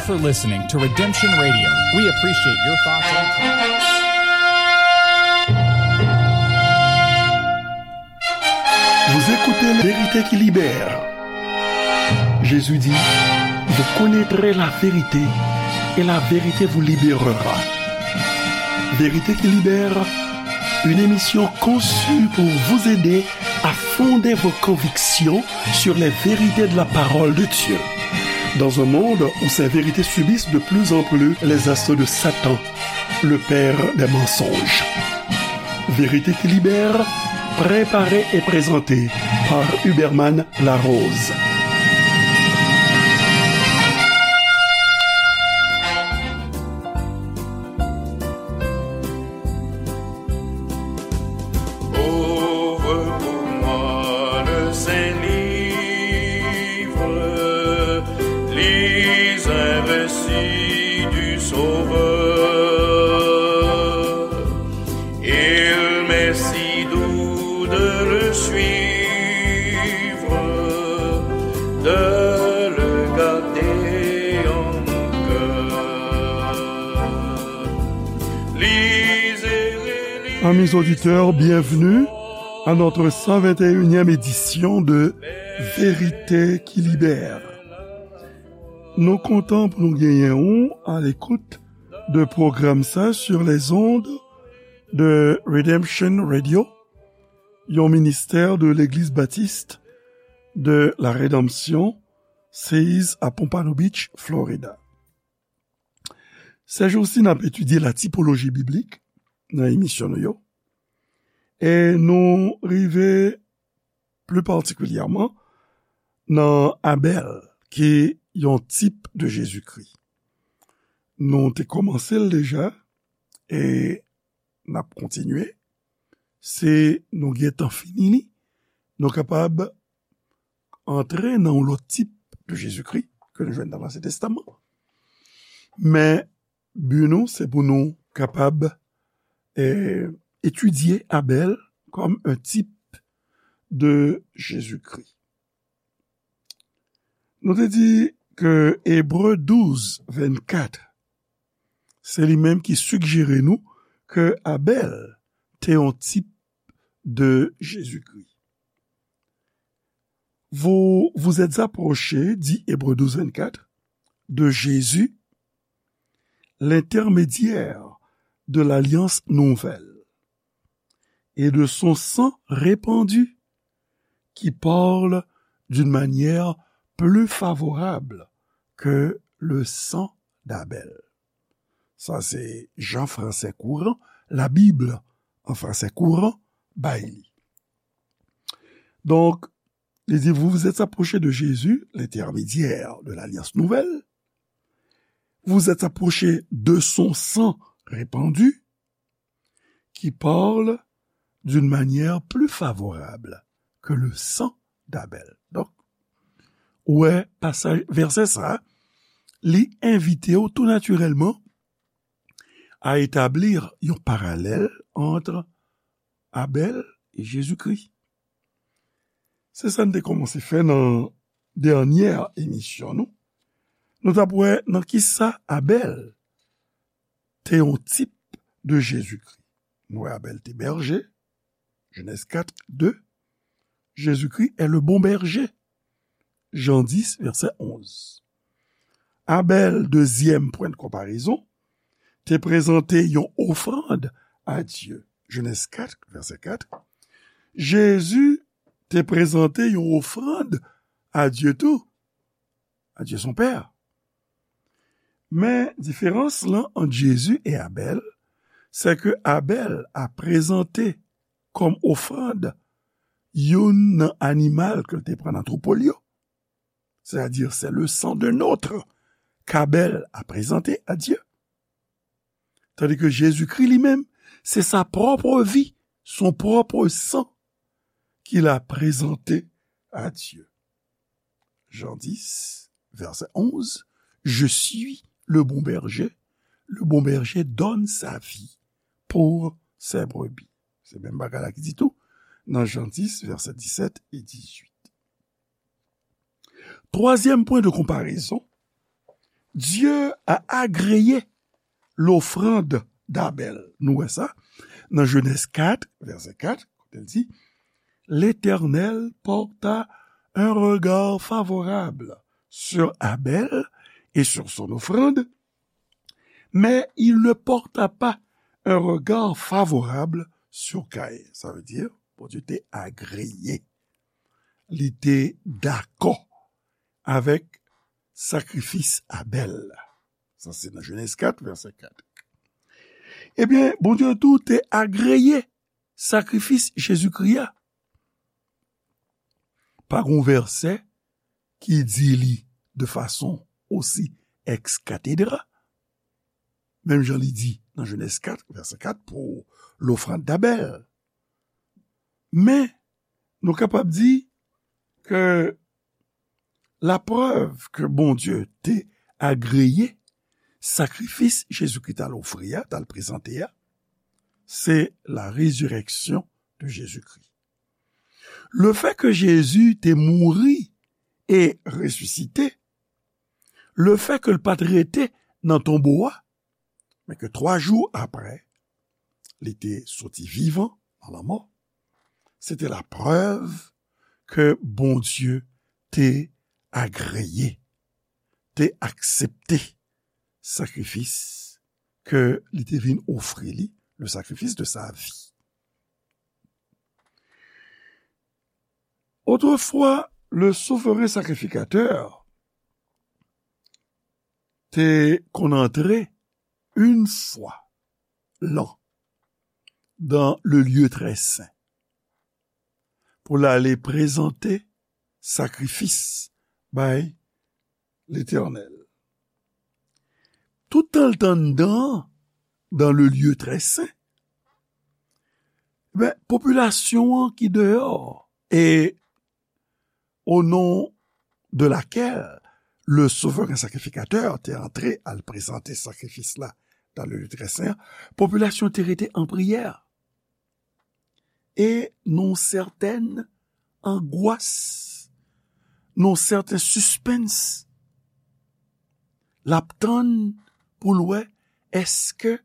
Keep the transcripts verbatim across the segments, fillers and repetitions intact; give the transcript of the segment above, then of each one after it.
for listening to Redemption Radio. We appreciate your thoughts and comments. Vous écoutez La Vérité qui libère. Jésus dit, vous connaîtrez la vérité et la vérité vous libérera. Vérité qui libère, une émission conçue pour vous aider à fonder vos convictions sur les vérités de la parole de Dieu. Dans un monde où ces vérités subissent de plus en plus les assauts de Satan, le père des mensonges. Vérité qui libère, préparée et présentée par Huberman Larose. Ouvre pour moi le Saint-Livre, lis un récit du Sauveur. Il m'est si doux de le suivre, de le garder en mon cœur. Amis auditeurs, bienvenue à notre cent vingt et unième édition de Vérité qui libère. Nou kontan pou nou genyen ou à l'écoute de pwogram sa sur les ondes de Redemption Radio, yon ministè de Legliz Batis de la Redanmsyon, seize à Pompano Beach, Florida. Sèjousi, n ap etidye la tipoloji biblik nan emisyon nou yo. E nou rive pli patikilyèman nan Abèl, ki yon tip de Jezikri. Nou te kòmanse l deja, e n ap kontinye. Si nou gentan fini li, nou kapab antre nan yon lòt tip de Jezikri ke nou jwenn nan Ansyen Testaman. Men, bi nou, se pou nou kapab, eh, etidye Abèl kòm un type de Jésus-Christ. Nou te di ke Ebre douz vennkat, se li menm ki sigjere nou ke Abèl te yon tip de Jezikri. Vous vous êtes approchés, dit Hébreux douze vingt-quatre, de Jésus, l'intermédiaire de l'alliance nouvelle, et de son sang répandu, qui parle d'une manière plus favorable que le sang d'Abel. Sa se Jan Fransè Kouran, la Bible en français courant, bay li. Donk, li di, vous vous êtes approchés de Jésus, l'intermédiaire de l'alliance nouvelle. Vous vous êtes approchés de son sang répandu, qui parle d'une manière plus favorable que le sang d'Abel. Donk, ou wè pasaj, vèsè sa, li envite w tou natirèlman à établir yon paralèl entre Abèl e Jezikri. Se sa n te kòmanse fè nan dènyè emisyon nou. Nou t ap wè nan kisa Abèl te yon tip de Jezikri. Nou wè Abèl te bèje, Genèse quatre deux. Jésus-Christ est le bon berger. Jan dis, vèsè onz. Abèl, dezyèm pwen de konparezon, te prezante yon ofrann a Dye. Genèse quatre, vèsè quatre. Jezi te prezante yon ofrann a Dye tou, a Dye son Pè. Men, diferans lan ant Jezi e Abèl, se ke Abèl a prezante kòm ofrann youn nan animal ke l te pran nan twoupo l yo. C'est-à-dire, c'est le sang d'un autre qu'Abel a présenté à Dieu. Tandis que Jésus-Christ lui-même, c'est sa propre vie, son propre sang qu'il a présenté à Dieu. Jean dix, verset onze, Je suis le bon berger, le bon berger donne sa vie pour ses brebis. Se menm bagay la ki di tou nan Jan dis, vèsè disèt e dizuit. Twazyèm pwen de konparezon, Dieu a agréé l'offrande d'Abel. Nou wè sa nan Jenèz kat, vèsè kat, kote l di, L'Éternel porta un regard favorable sur Abel et sur son offrande, mais il ne porta pas un regard favorable sur Caïn. Sa vle di, Bondye te agreye, li te dakò avèk sakrifis Abèl la. Sa se nan Jenèz kat, vèsè kat. Ebyen, Bondye tou te agreye sakrifis Jezikri a. Pa gon vèsè ki di li de fason osi ex cathedra, menm jan li di nan Jenèz kat, vèsè kat, pou lofrann Abèl. Men, nou kapab di ke laprèv ke Bondye te agreye sakrifis Jezikri t al ofri a, t al prezante a, se la résurrection de Jésus-Christ. Lefè ke Jezi te mouri e resisite, lefè ke l pa t rete nan tonbo a, men ke twa jou apre, li te soti vivan nan lanmò, se te laprèv ke Bondye te agreye, te aksepte sakrifis ke li te vin ofri li, le sacrifice de sa vie. Autrefois, le souveren sakrifikatè te konn antre une fois l'an dans le lieu très saint pou l ale prezante sakrifis bay Letènèl. Toutan l t anndan, dans le lieu très saint, ben, popilasyon an ki deyò, e au nom de laquelle le souverain sacrificateur te antre al prezante sakrifis la dans le lieu très saint, popilasyon te rete an priyè. E nan yon sètèn angwas, nan yon sèten sispens, l ap tann pou l wè èske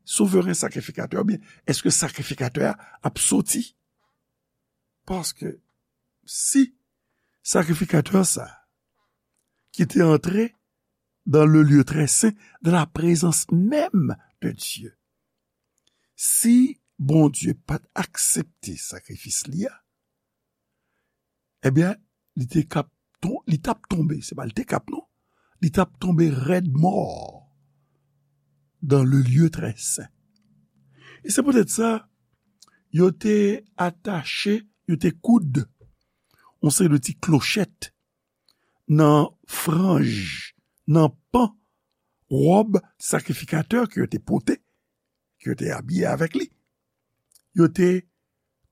souveren sakrifikatè, oubyen èske sakrifikatè a ap soti. Paske si sakrifikatè sa, ki te antre dans le lieu très saint, dans la présence même de Dieu, si Bondye pa t aksepte sakrifis li a, ebyen, li te kap ton-, li t ap tonbe, se pa li te kap non, li t ap tonbe rèd mò dans le lieu très saint. E se poutèt sa, yo te atache, yo te koud yon seri de ti klochèt nan franj, nan pan wòb sakrifikatè ke yo te pote, ke yo te abiye avèk li. Yo te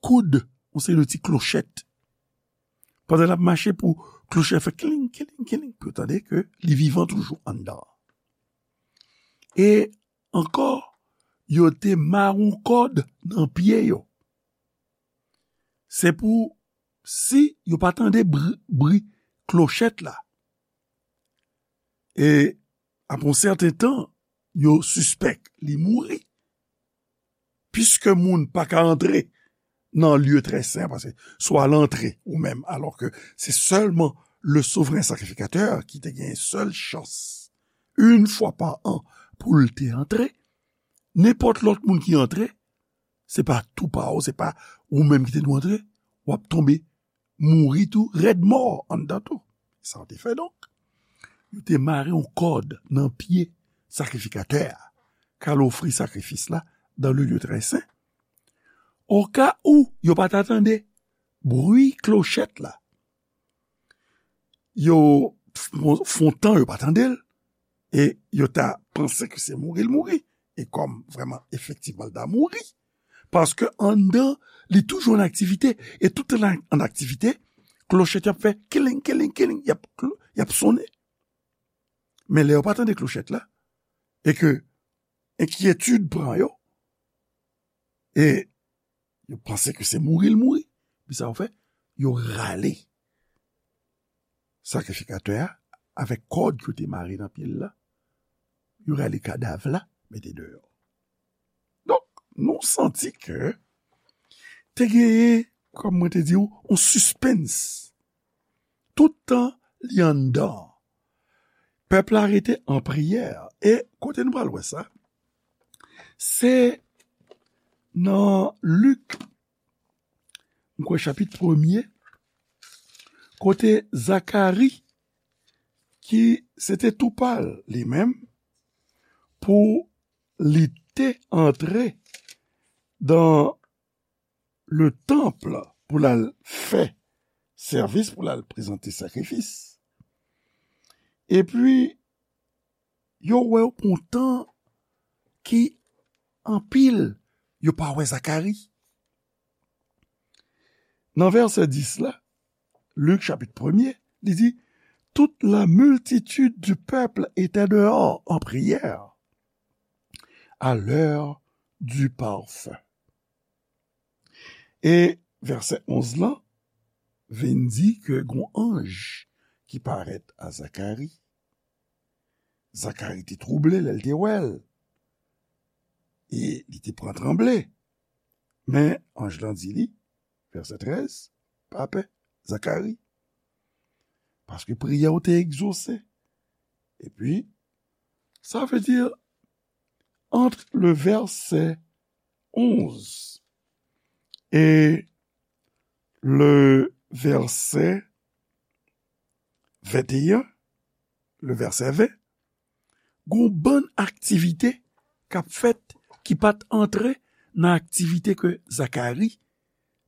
koud yon seri de ti klochèt. Pandan l ap mache pou klochèt fè kiling, kiling, kiling, pou yo tande ke li vivan toujou anndan. E ankò, yo te mare yon kòd nan pye yo. Se pou si yo pa tande bri, bri klochèt la. E apre yon sèten tan, yo sispèk li mouri. Piske moun pa ka antre nan lye trè sen, paske swa l antre ou menm, alò ke se sèlman le souvren sakrifikatè ki te gen sèl chans, yon fwa pa an, pou l te antre. Nenpòt lòt moun ki antre, se pa tou pa w, se pa ou menm ki te dwe antre, w ap tonbe mouri tou, rèd mò anndan tou. Sa yo te fè donk. Yo te mare yon kòd nan pye sakrifikatè a, k al ofri sakrifis la dans le lieu très saint. Oka ou yo pa ta tande bri klochèt la, yo fon, fon tan yo pa tande l, e yo ta panse ke se mouri l mouri. E kòm vrèman, efektivman, l ta mouri. Paske anndan, li toujou an aktivite. E tout an, an aktivite, klochèt y ap fè kiling, kiling, kiling, y ap, y ap sonnen. Men lè yo pa tande klochèt la, e ke enkyetid pran yo, e yo panse ke se mouri l mouri, men sa yo fè, yo rale sakrifikatè a avèk kòd ke yo te mare nan pye l la, yo rale kadav la, mete deyò. Donk, nou santi ke te genyen, kòm mwen te di w, yon sispens. Tout tan li anndan, pèp la rete an priyè. E kote nou pral wè sa? Se nan Lik, m kwè chapit premye, kote Zakari, ki se te tou pa l li menm, pou li te antre dan le tanp pou l al fè sèvis, pou l al prezante sakrifis. Epi, yo wè yo pran tan ki anpil yo pa wè Zakari. Nan vèsè dis la, Lik chapit premye, li di, toute la multitude du peuple était dehors en prière à l'heure du parfum. E vèsè onz lan vin di ke gon anj ki parèt a Zakari. Zakari te twouble lè l te wè l. E li te pran tranble. Men anj lan di li, vèsè trèz, pa pè, Zakari. Paske priyè w te egzose. Epi, sa vle di, entre le verset onze et le verset vingt et un, le verset vingt, gon bann aktivite k ap fèt ki pa t antre nan aktivite ke Zakari,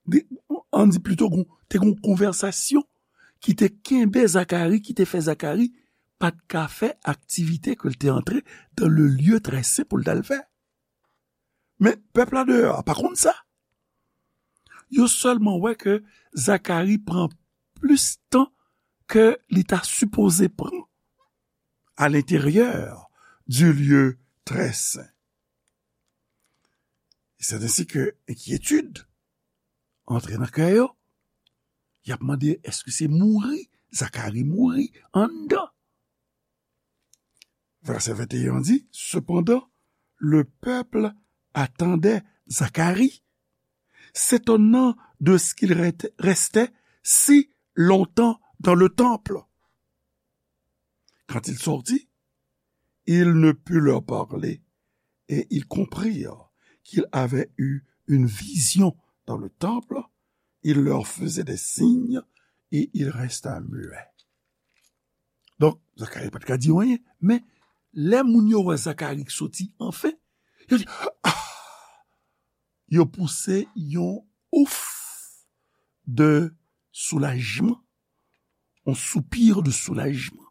di- ann di plito, gon- te gon konvèsasyon ki te kenbe Zakari, ki te fè Zakari pa t ka fè aktivite ke l te antre dans le lieu très saint pou l t al fè. Men pèp la deyò a pa konn sa. Yo sèlman wè ke Zakari pran plis tan ke li ta sipoze pran à l'intérieur du lieu très saint. E c'est ainsi que enkyetid antre nan kè yo. Y ap mande, èske se mouri Zakari mouri anndan? Verset vingt et un dit, cependant, le peuple attendait Zacharie, s'étonnant de ce qu'il ret- restait si longtemps dans le temple. Quand il sortit, il ne put leur parler, et ils comprirent qu'il avait eu une vision dans le temple. Il leur faisait des signes et il resta muet. Donk, Zakari pa t ka di anyen, men lè moun yo wè Zakari k soti anfen, yo di, ah! Yo pouse yon ouf de soulajman, yon soupir de soulajman,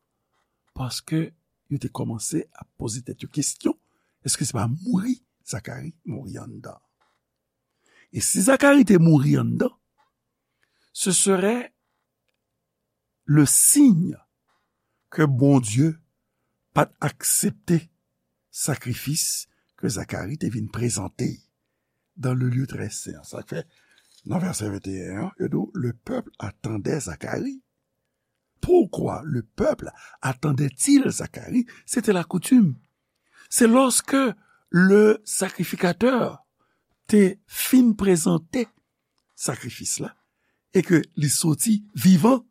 paske yo te kòmanse ap poze tèt yo kesyon, èske se pa mouri Zakari mouri anndan? E si Zakari te mouri anndan, ce serait le signe ke Bondye pa t aksepte sakrifis ke Zakari te vin prezante dans le lieu très saint. Sa k fè, nan vèsè venteyen an, yo di w, le peuple attendait Zacharie. Pourquoi le peuple attendait-il Zacharie? C'était la coutume. C'est lorsque le sacrificateur te fin prezante sakrifis la e ke li soti vivan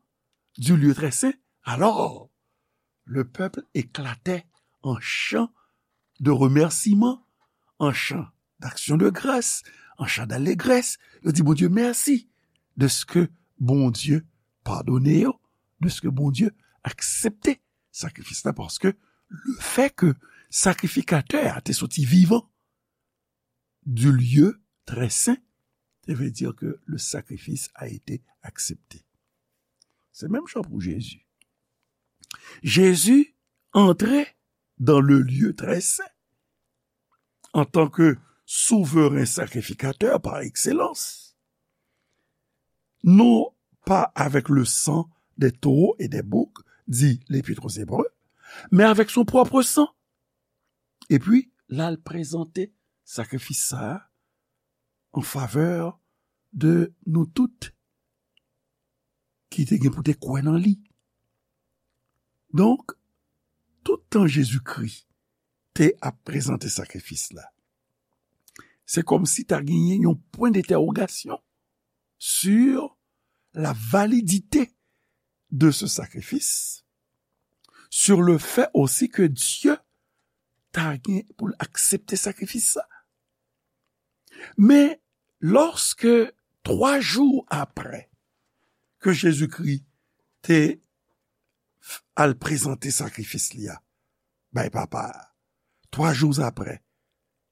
du lieu très saint, alors le peuple éclatait en chants de remerciement, en chants d'action de grâce, en chants d'allégresse. Yo di Bondye mèsi de ce que Bondye padone yo, de ce que Bondye aksepte sakrifis la, paske le fait que sakrifikatè a te soti vivan du lieu très saint, ça veut dire que le sacrifice a été accepté. Se menm jan pou Jezi. Jezi antre dans le lieu très saint en tant que souverain sacrificateur par excellence, non pas avec le sang des taureaux et des boucs, dit l'Épître aux Hébreux, mais avec son propre sang. Epi, l al prezante sakrifis sa a an favè de nou tout ki te gen pou te kwè nan li. Donk, tout tan Jezikri te ap prezante sakrifis la, se kòmsi ta genyen yon pwen dentèwogasyon sur la validité de ce sacrifice, sur le fait aussi que Dieu ta gen pou l aksepte sakrifis sa. Men, lòske twa jou apre ke Jezikri te al prezante sakrifis li a bay Papa a, twa jou apre,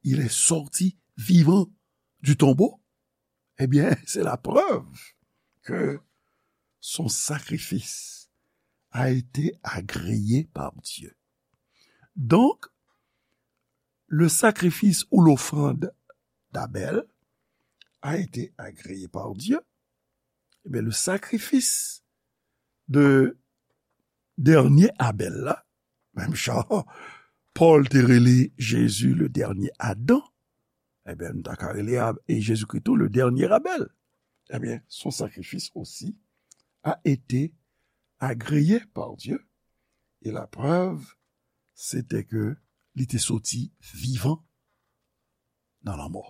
il est sorti vivant du tombeau, eh bien, c'est la preuve que son sacrifice a été agréé par Dieu. Donc, le sacrifice ou l'offrande d'Abel a été agréé par Dieu. Eh bien, le sacrifice de dènye Abèl la, menm jan Pòl te rele Jezi le dènye Adan, ebyen, nou ta ka rele Ab- e Jezikri tou le dènye Abèl. Ebyen, son sacrifice aussi a été agréé par Dieu, et la preuve, c'était que li te soti vivan nan lanmò.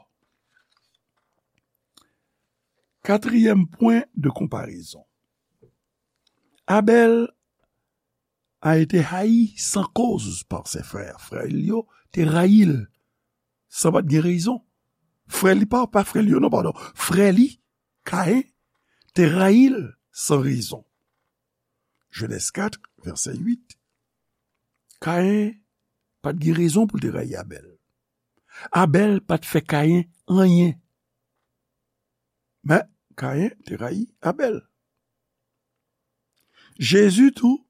Katriyèm pwen de konparezon. Abèl a été haï sans cause par ses frères. Frè l yo te rayi l san pa t gen rezon. Frè li pa, pa frè l yo, non, padon. Frè li, Kayen, te rayi l san rezon. Jenèz kat, vèsè uit. Kayen pa t gen rezon pou l te rayi Abèl. Abèl pa t fè Kayen anyen. Men, Kayen te rayi Abèl. Jezi tou,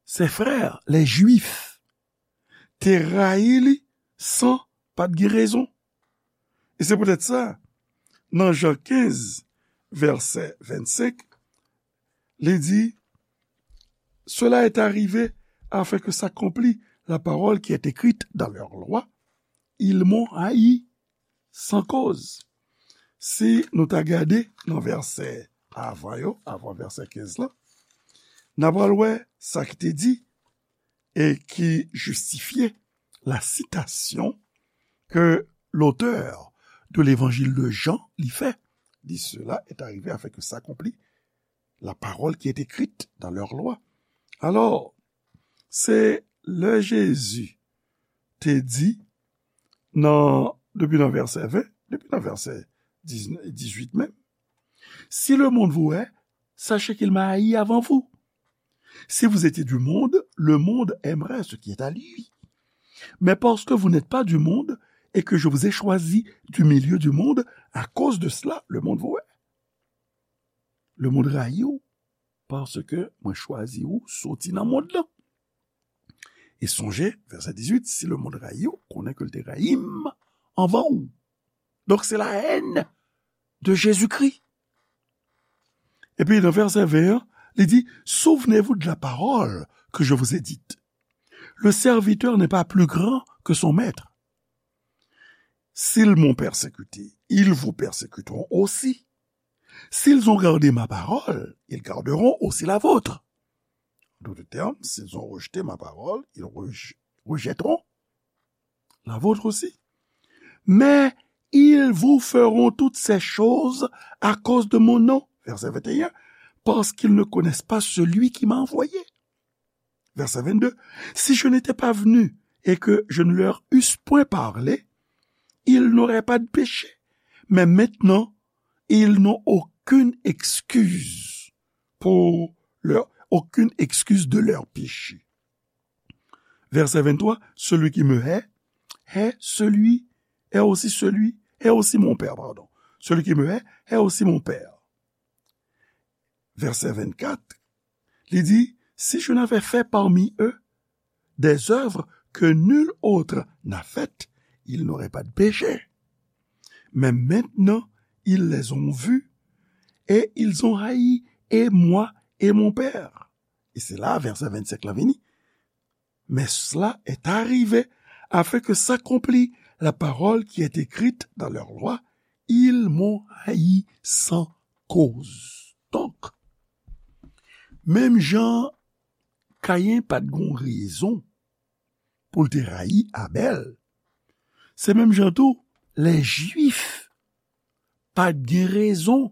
ses frères, les Juifs, te rayi li san pa t gen rezon. E se poutèt sa, nan Jan kenz, vèsè vennsenk, li di, cela est arrivé afin que s'accomplisse la parole qui est écrite dans leur loi, ils m'ont haï sans cause. Si nou ta gade nan vèsè avan yo, avan vèsè kenz la, n a pral wè sa ki te di e ki jistifye la sitasyon ke l'auteur de l'évangile de Jean li fè. Li, cela est arrivé afin que s'accomplisse la parole qui est écrite dans leur loi. Alò, se lè Jezi te di nan, depi nan vèsè ven, depi nan vèsè dizuit menm, si le monde vous hait, sachez qu'il m'a haï avant vous. Si vous étiez du monde, le monde aimerait ce qui est à lui. Mais parce que vous n'êtes pas du monde et que je vous ai choisi du milieu du monde, à cause de cela, le monde vous hait. Le monde rayi w paske mwen chwazi w soti nan mond lan. E sonje, vèsè dizuit, si le monde rayi w, konnen ke l te rayi m anvan w. Donk, se la haine de Jésus-Christ. Epi nan vèsè ven an, li di, souvenez-vous de la parole que je vous ai dite. Le serviteur n'est pas plus grand que son maître. S'ils m'ont persécuté, ils vous persécuteront aussi. S'ils ont gardé ma parole, ils garderont aussi la vôtre. En d'autres termes, s'ils ont rejeté ma parole, ils rej- rejetteront la vôtre aussi. Mais ils vous feront toutes ces choses à cause de mon nom. Verset vingt et un, parce qu'ils ne connaissent pas celui qui m'a envoyé. Verset vingt-deux, si je n'étais pas venu et que je ne leur eusse point parlé, ils n'auraient pas de péché. Mais maintenant, ils n'ont aucune excuse pour leur, aucune excuse de leur péché. Verset vingt-trois, celui qui me hait, hait celui, hait aussi celui, hait aussi mon Père, pardon. Celui qui me hait, hait aussi mon Père. Verset vingt-quatre, li di, si je n'avais fait parmi eux des œuvres que nul autre n'a faites, ils n'auraient pas de péché. Mais maintenant, ils les ont vues et ils ont haï et moi et mon Père. E se la, vèsè vennsenk la vini. Mais cela est arrivé afin que s'accomplisse la parole qui est écrite dans leur loi, ils m'ont haï sans cause. Donk, menm jan Kayen pa t gon rezon pou l te rayi Abèl. Se menm jan tou, lè Jwif pa t gen rezon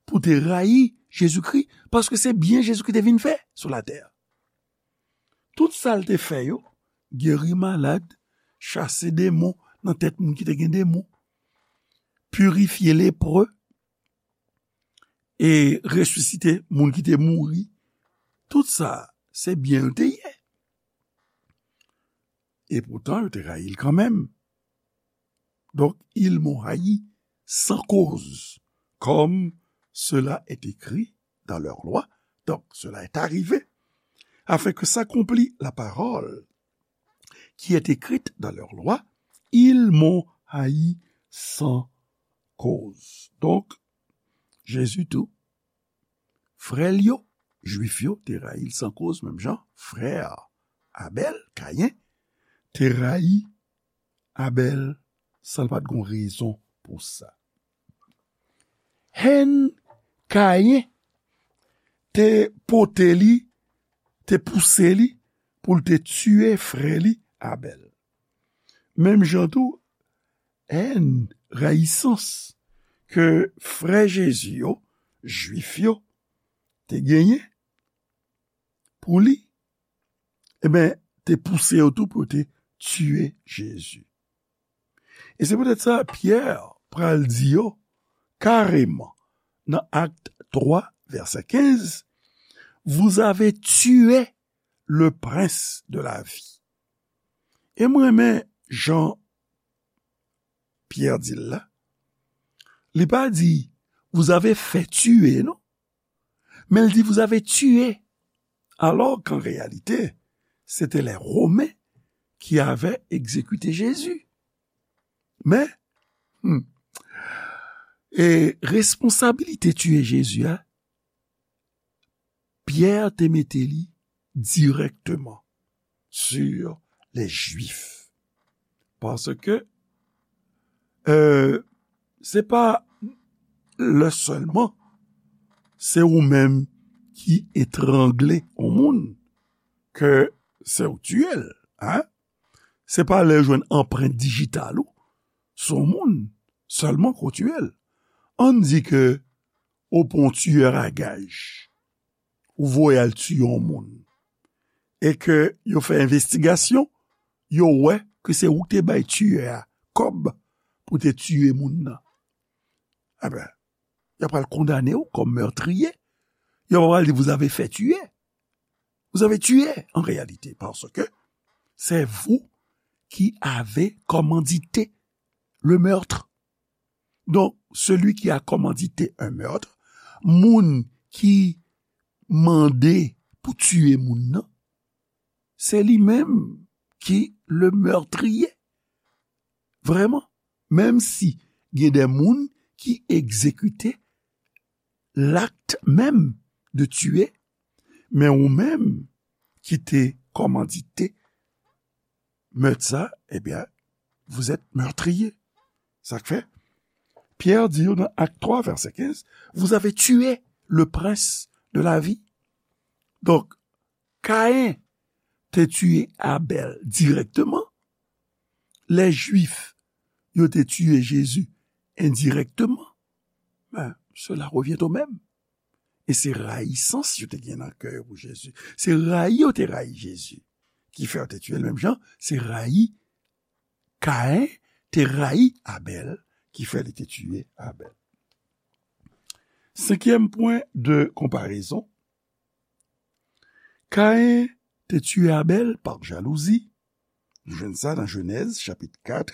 pou te rayi Jezikri, paske se byen Jezikri te vin fè sou latè. Tout sa l te fè yo, geri malad, chase demon nan tèt moun ki te gen demon, pirifye lepre, e resisite moun ki te mouri. Tout sa, se byen l te ye. E poutan, yo te rayi l kanmenm. Donc, ils m'ont haï sans cause, comme cela est écrit dans leur loi. Donc, cela est arrivé, afin que s'accomplît la parole qui est écrite dans leur loi, ils m'ont haï sans cause. Donc, Jezi tou, frè l yo, Jwif yo, te rayi l san koz, menm jan frè Abèl, Kayen, te rayi Abèl san l pa t gon rezon pou sa. Hèn Kayen te pote li, te pouse li pou l te tiye frè li Abèl. Menm jan tou, hèn, rayisans ke frè Jezi yo, Jwif yo, te genyen pou li, ebyen, te pouse yo tou pou yo te tiye Jezi. E se poutèt sa, Pyè pral di yo kareman nan Acte trois, verset quinze, vous avez tué le prince de la vie. E mwen renmen jan Pyè di l la. Li pa di, vous avez fait tuer, non. Men l di, vous avez tué. Alors qu'en réalité, c'était les Romains qui avaient exécuté Jésus. Men, hmm, e responsabilite tiye Jezi a, Pyè te mete li dirèkteman sur les Juifs. Paske, euh, se pa lè sèlman se ou menm ki etrangle yon moun ke se ou tiye l, hein? Se pa lè yo jwenn anprent dijital ou sou yon moun sèlman ke w tiye l. Ann di ke ou pran yon tiyè a gaj, ou voye al tiye yon moun, e ke yo fè envestigasyon, yo wè ke se ou ki te bay tiyè a kòb pou te tiye moun nan. Enben, y ap pral kondane w kòm mètriye. Yo pral di, vous avez fait tuer. Vous avez tué, en réalité, parce que c'est vous qui avez commandité le meurtre. Donc, celui qui a commandité un meurtre, moun ki mande pou tiye moun nan, se li menm ki le meurtrier. Vrèman, menm si gen de moun ki egzekite l'acte même de tuer, men ou menm ki te kòmandite mèt sa, ebyen, vous êtes meurtrier. Sa k fè, Pyè di yo nan Acte trois, verset quinze, vous avez tué le prince de la vie. Donk, Kayen te tiye Abèl dirèkteman, lè Jwif yo te tiye Jezi endirèkteman, ben, cela revient au même. E se rayisans yo te gen nan kè yo pou Jezi. Se rayi yo te rayi Jezi ki fè yo te tiye l menm jan, se rayi Kayen te rayi Abèl ki fè li te tiye Abèl. Senkyèm pwen de konparezon, Kayen te tiye Abèl pa jalouzi. Nou jwenn sa nan Jenèz, chapit kat,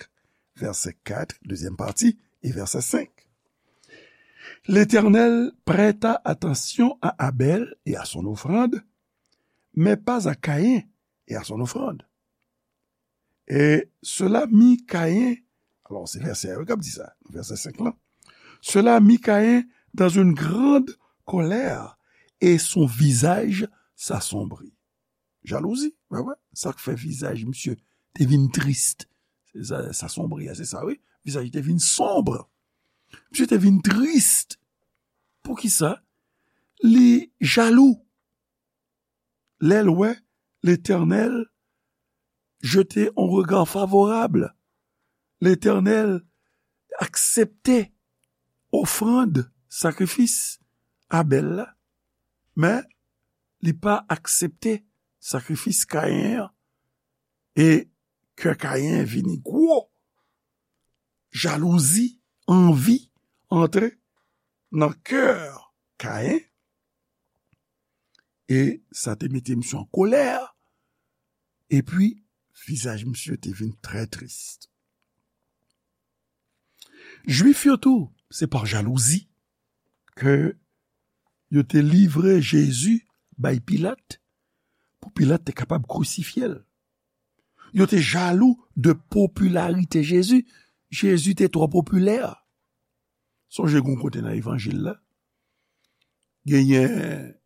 vèsè kat, dezyèm pati, e vèsè senk. L'Éternel prêta attention à Abel et à son offrande, mais pas à Caïn et à son offrande. Et cela mit Caïn, alors c'est verset un k ap di sa, verset cinq là. Cela mit Caïn dans une grande colère et son visage s'assombrit. Jalouzi, wè, wè. Sa k fè vizaj misye te vin tris. Se sa, sa sonbre, se sa, wi. Vizaj li te vin sonb. Misye te vin tris. Poukisa? Li jalou. Lè l wè Letènèl jete yon rega favorab. Letènèl aksepte ofrann, sakrifis Abèl la, men li pa aksepte sakrifis Kayen an. E kè Kayen vini gwo. Jalouzi, anvi antre nan kè Kayen. E sa te mete misye an kolè. Epi, vizaj misye te vin trè tris. Jwif yo tou, se pa jalouzi ke yo te livre Jezi bay Pilat, pou Pilat te kapab krisifye l. Yo te jalou de popilarite Jezi. Jezi te twò popilè. Sonje gen yon kote nan evanjil la, genyen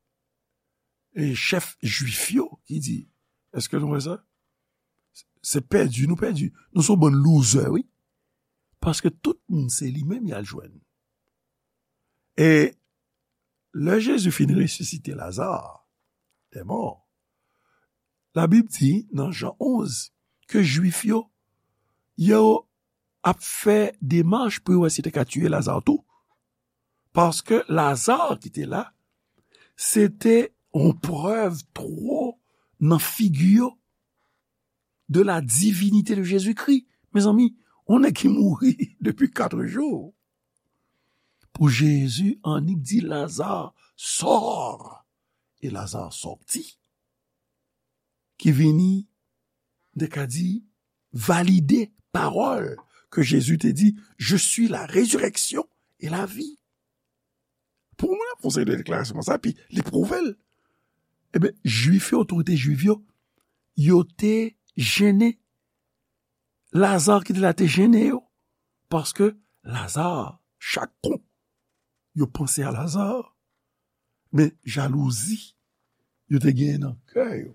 e chèf jwif yo ki di, èske nou wè sa? Se pèdi, nou pèdi. Nou se yon bann loser, wi. Paske tout moun se li menm y al jwenn. E lè Jezi fin resisite Laza dè mò, Labib di nan Jan onz ke Jwif yo, yo ap fè demach pou yo wè si yo te ka tiye Laza tou. Paske Laza ki te la, se te yon prèv twò nan figi yo de la divinite de Jezikri. Mezanmi, yon nèg ki mouri depi kat jou. Pou Jezi annik di Laza, sò! E Laza sòti. Ki vini, m te ka di, valide pawòl ke Jezi te di, Je suis la résurrection et la vie. Pou mwen, ap fè yon seri de deklarasyon konsa, epi li pwouve l. Ebyen, Jwif yo, otorite Jwif yo, yo te jennen. Laza ki te la te jennen yo. Paske Laza, chak kou yo panse a Laza, men jalouzi yo te genyen nan kè yo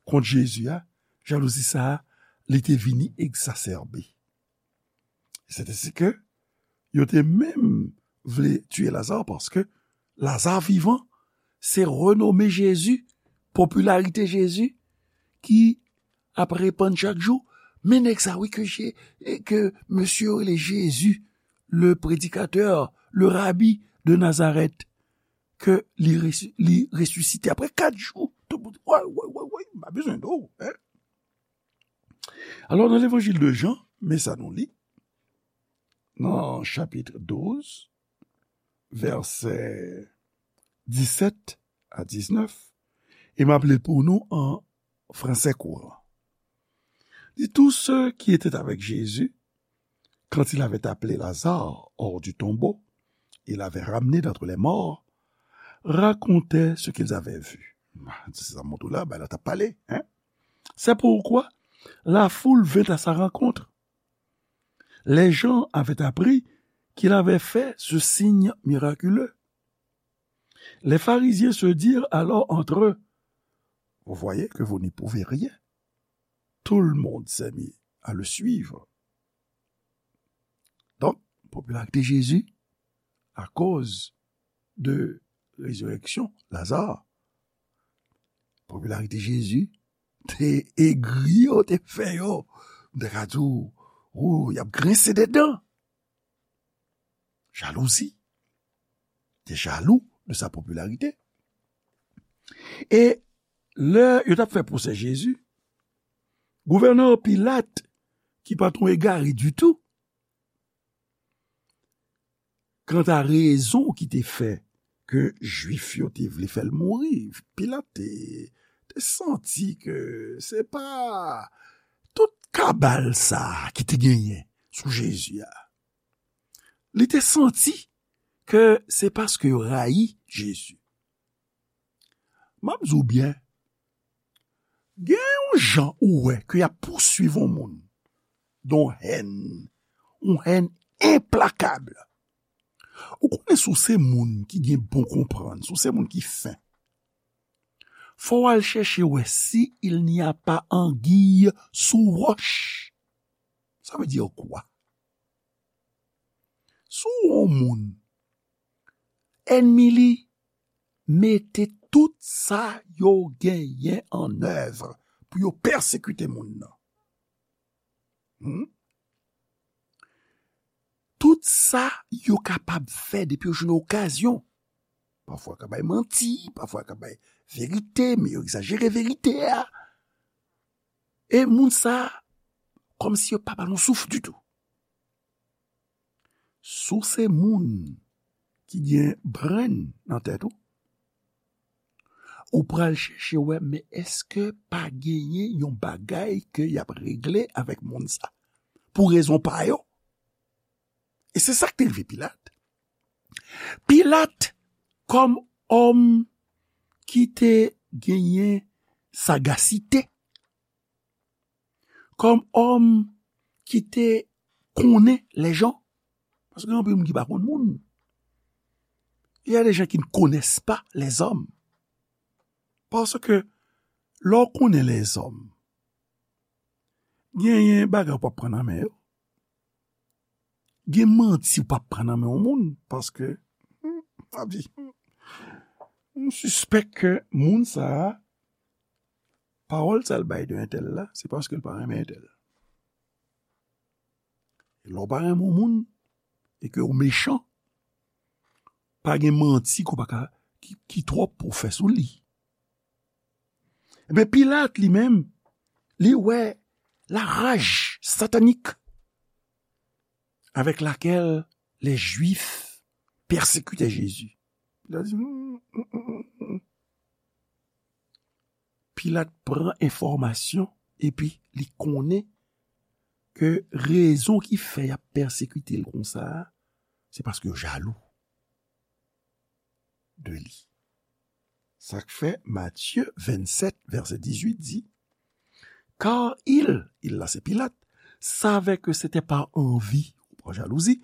kont Jezi a, jalouzi sa a, li te vini egzasèbe. Se te si ke yo te menm vle tiye Laza paske Laza vivan, se renome Jezi, popilarite Jezi ki ap repann chak jou. Men nèg sa wi ke, ke mesye yo rele Jezi, le predikatè, le rabi de Nazarèt, ke li, resi- li resisite apre kat jou. Tout moun, woy, woy, woy, woy, m pa bezwen de w, hein? Alò, nan levanjil de Jan, men sa nou li, nan chapit douz, vèsè disèt a diznèf, e m ap li l pou nou an français courant. Dit, tous ceux qui étaient avec Jésus, quand il avait appelé Lazare hors du tombeau et l'avait ramené d'entre les morts, racontaient ce qu'ils avaient vu. Se sa m montre w la, bagay la t ap pale, hein? C'est pourquoi la foule vint à sa rencontre. Les gens avaient appris qu'il avait fait ce signe miraculeux. Les pharisiens se dirent alors entre eux, vous voyez que vous n'y pouvez rien. Tout le monde s'est mis à le suivre. Donk, popilarite Jezi, akoz de rezirèksyon Laza, popilarite Jezi te egri yo, te fè yo, m te ka di w, ou, y ap grense de dan. Jalouzi. Te jalou de sa popilarite. E lè yo t ap fè pwosè Jezi, gouvènè Pilat, ki pa t yon egare ditou, kanta rezon ki te fè ke Jwif yo te vle fè l mouri, Pilat te, te santi ke se pa tout kabal sa a ki te genyen sou Jezi a. Li te santi ke se paske yo rayi Jezi. M ap di w byen, gen yon jan ou wè ke y ap pousuiv yon moun, yon hèn, yon hèn enplakab. Ou konnen si w se moun ki gen bon konprann, si w se moun ki fen, fò w al chèche wè si il n'y a pas anguille sous roche. Ça veut dire quoi? Si w yon moun, ènmi li mete tout sa yo genyen an èv pou yo pèsekite moun nan. Hmm? Tout sa yo kapab fè depi yo jwenn okazyon. Pafwa yo ka bay manti, pafwa yo ka bay verite, men yo egzajere verite a. E moun sa, kòmsi yo pa ba nou souf ditou. Si w se moun ki gen brenn nan tèt ou, ou pral chèche wè, men èske pa genyen yon bagay ke y ap regle avèk moun sa? Pou rezon pa yo. E se sa k te rive Pilat. Pilat, kòm òm ki te genyen sagasite, kòm òm ki te konnen lèjan, paske gen anpil moun ki pa konn moun. Il y a des gens qui ne connaissent pas les hommes. Paske lè w konnen lèzòm, genyen bagay w p ap pran nan men yo. Gen manti w p ap pran nan men yon moun, paske, hmm, m ap di, hmm, m sispèk ke moun sa a, pawòl sa l bay de entèl la, se paske l pa renmen entèl. E lè w pa renmen yon moun, e ke w mechan, pa gen manti ke w pa ka, ki, ki twòp pou w fè sou li. Ebyen, Pilat, li menm, li wè la rage satanique avec laquelle les Juifs persécutaient Jésus. Li di, hmm, hmm, hmm, hmm. Pilat pran enfòmasyon epi li konnen ke rezon ki fè y ap pèsekite l konsa a, se paske yo jalou de li. Sa k fè Matye vennsèt, vèsè dizuit di, Car ils, ils la se Pilat, savaient que c'était par envie, ou par jalousie,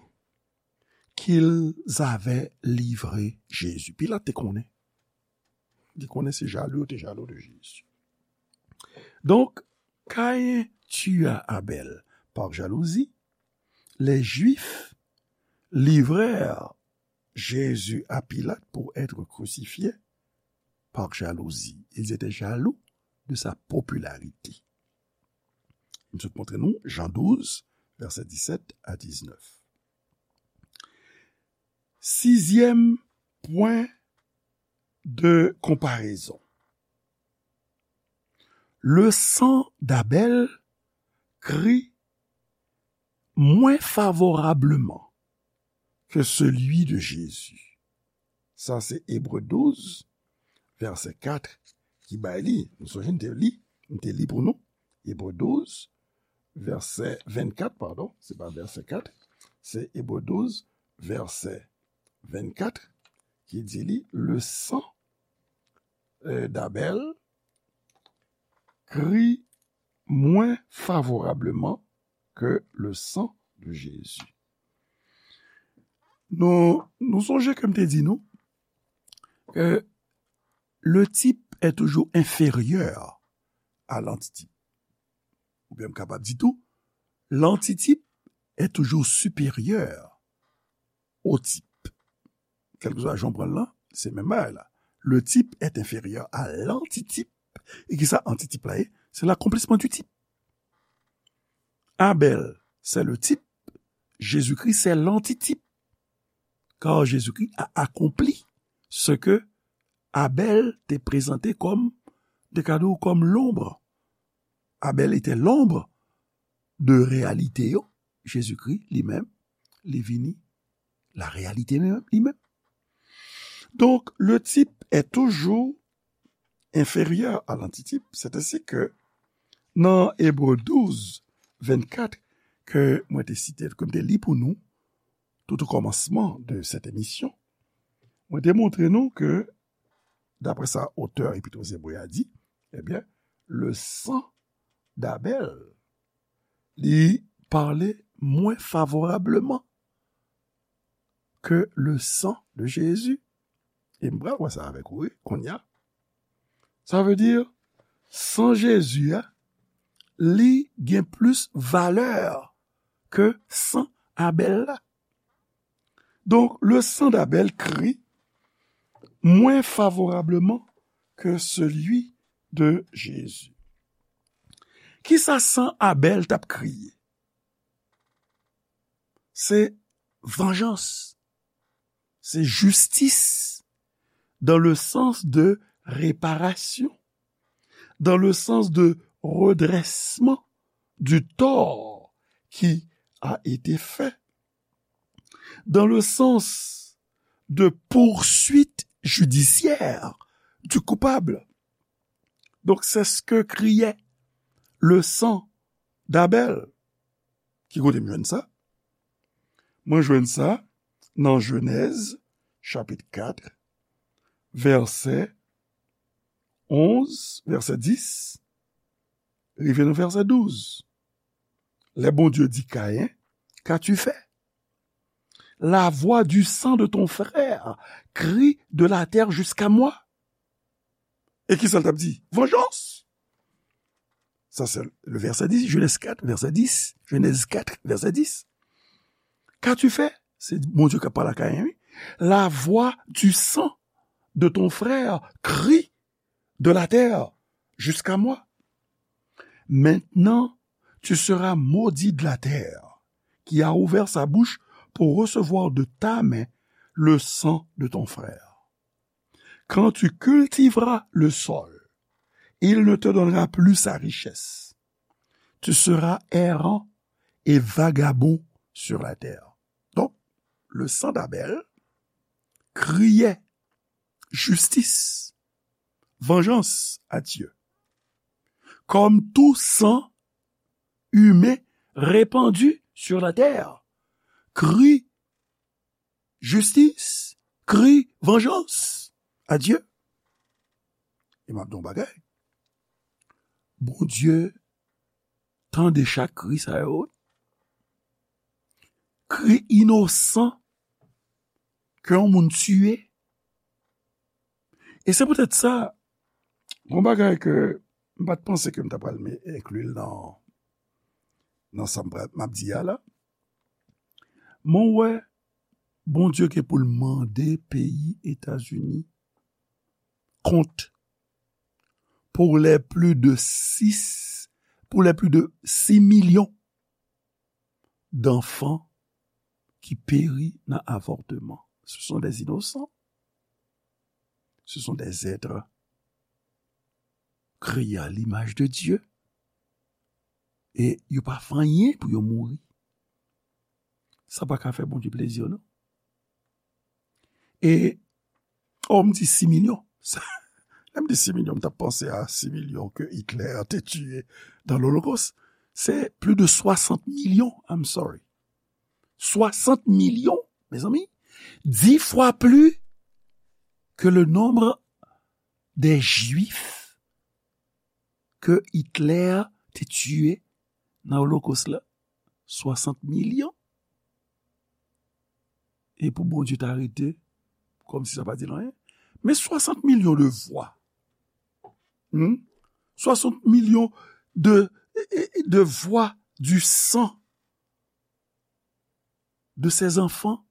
qu'ils avaient livré Jésus. Pilat te konnen. Li konnen se jalou yo te jalou de Jezi. Donc, Caïn tua Abel par jalousie, les Juifs livrèrent Jésus à Pilate pour être crucifié par jalousie. Ils étaient jaloux de sa popularité. M sot montre nou Jan douz, vèsè disèt a diznèf. Sizyèm pwen de konparezon. Le sang d'Abel crie moins favorablement que celui de Jésus. Sa se Ebre douz, vèsè kat, ki bay li. Nou sonje n te li, n te li pou nou. Ebre douz, vèsè vennkat, padon, se pa vèsè kat, se Ebre douz, vèsè vennkat, ki di li, le sang, euh, d'Abel crie moins favorablement que le sang de Jésus. Nou, nou sonje ke m te di nou ke le type est toujours inférieur à l'antitype. Oubyen m kapab di tou, l'antitype est toujours supérieur au type. Kèlkeswa jan w pran l lan, se menm bagay la. Le type est inférieur à l'antitype. E kisa antitip la ye? C'est l'accomplissement du type. Abel, c'est le type. Jésus-Christ, c'est l'antitype. Car Jésus-Christ a accompli ce que Abel te prezante kòm, te ka di w kòm l'ombre. Abel était l'ombre de réalité yo. Jezikri, li menm, li vini la réalité li menm. Donc, le type est toujours inférieur à l'antitype. C'est ainsi que, nan Ebre douz, vennkat, ke mwen te site, ke m te li pou nou, tout o kòmansman de cette émission, mwen te montre nou ke, daprè sa otè Epit o Zebre a di, ebyen, le sang d'Abel, li pale mwen favorableman ke le sang de Jésus. E m pral wè sa avèk ou, wi, kounye a. Sa vle di, san Jezi a, li gen plis valè ke san Abèl la. Donk, le sang d'Abel crie moins favorablement que celui de Jésus. Kisa san Abèl t ap kriye? Se vanjans, se jistis, dans le sens de réparation, dans le sens de redressement du tort qui a été fait, dans le sens de poursuite judiciaire du coupable. Donc, c'est ce que criait le sang d'Abel. Ki kote m jwenn sa? Mwen jwenn sa nan Jenèz, chapit kat, vèsè onz, vèsè dis, rive nan vèsè douz. Lè Bondye di Kayen, qu'as-tu fait? La voix du sang de ton frère crie de la terre jusqu'à moi. E kisa l t ap di? Vengeance! Sa se le vèsè dis, Jenèz kat, vèsè dis, Jenèz kat, vèsè dis. Qu'as-tu fait? Se Bondye k ap pale a Kayen, wi. La voix du sang de ton frère crie de la terre jusqu'à moi. Maintenant, tu seras maudit de la terre, qui a ouvert sa bouche pour recevoir de ta main le sang de ton frère. Quand tu cultiveras le sol, il ne te donnera plus sa richesse. Tu seras errant et vagabond sur la terre. Donc, le sang d'Abel criait justice, vengeance à Dieu. Comme tout sang humain répandu sur la terre crie justice, crie vengeance à Dieu. E m ap di yon bagay. Bondye tande chak kri sa yo. Kri inosan ke yon moun tiye. E se poutèt sa, yon bagay ke m pa t panse ke m ta pral me-, enkli l nan, nan sa m pral, m ap di a la. Mwen wè Bondye gen pou l mande peyi Etazini kont pour les plus de six, pour les plus de six millions d'enfants qui périt nan avòtman. Ce sont des innocents. Ce sont des êtres créés à l'image de Dieu. E yo pa fè anyen pou yo mouri. Sa pa ka fè Bondye plezi, non. E, oh, m di sis milyon. Sa, lè m di sis milyon, m t ap panse a sis milyon ke Hitler te tiye dans l'Holocauste. C'est plus de soixante millions, I'm sorry. Soixante millions, mes amis. Dix fois plus que le nombre des Juifs ke Hitler te tiye nan Olokos la. Soixante milyon. E pou Bondye ta rete, kòmsi sa pa di l anyen. Men soixante milyon de vwa. Hmm? Soixante milyon de, de vwa du sang de ces enfants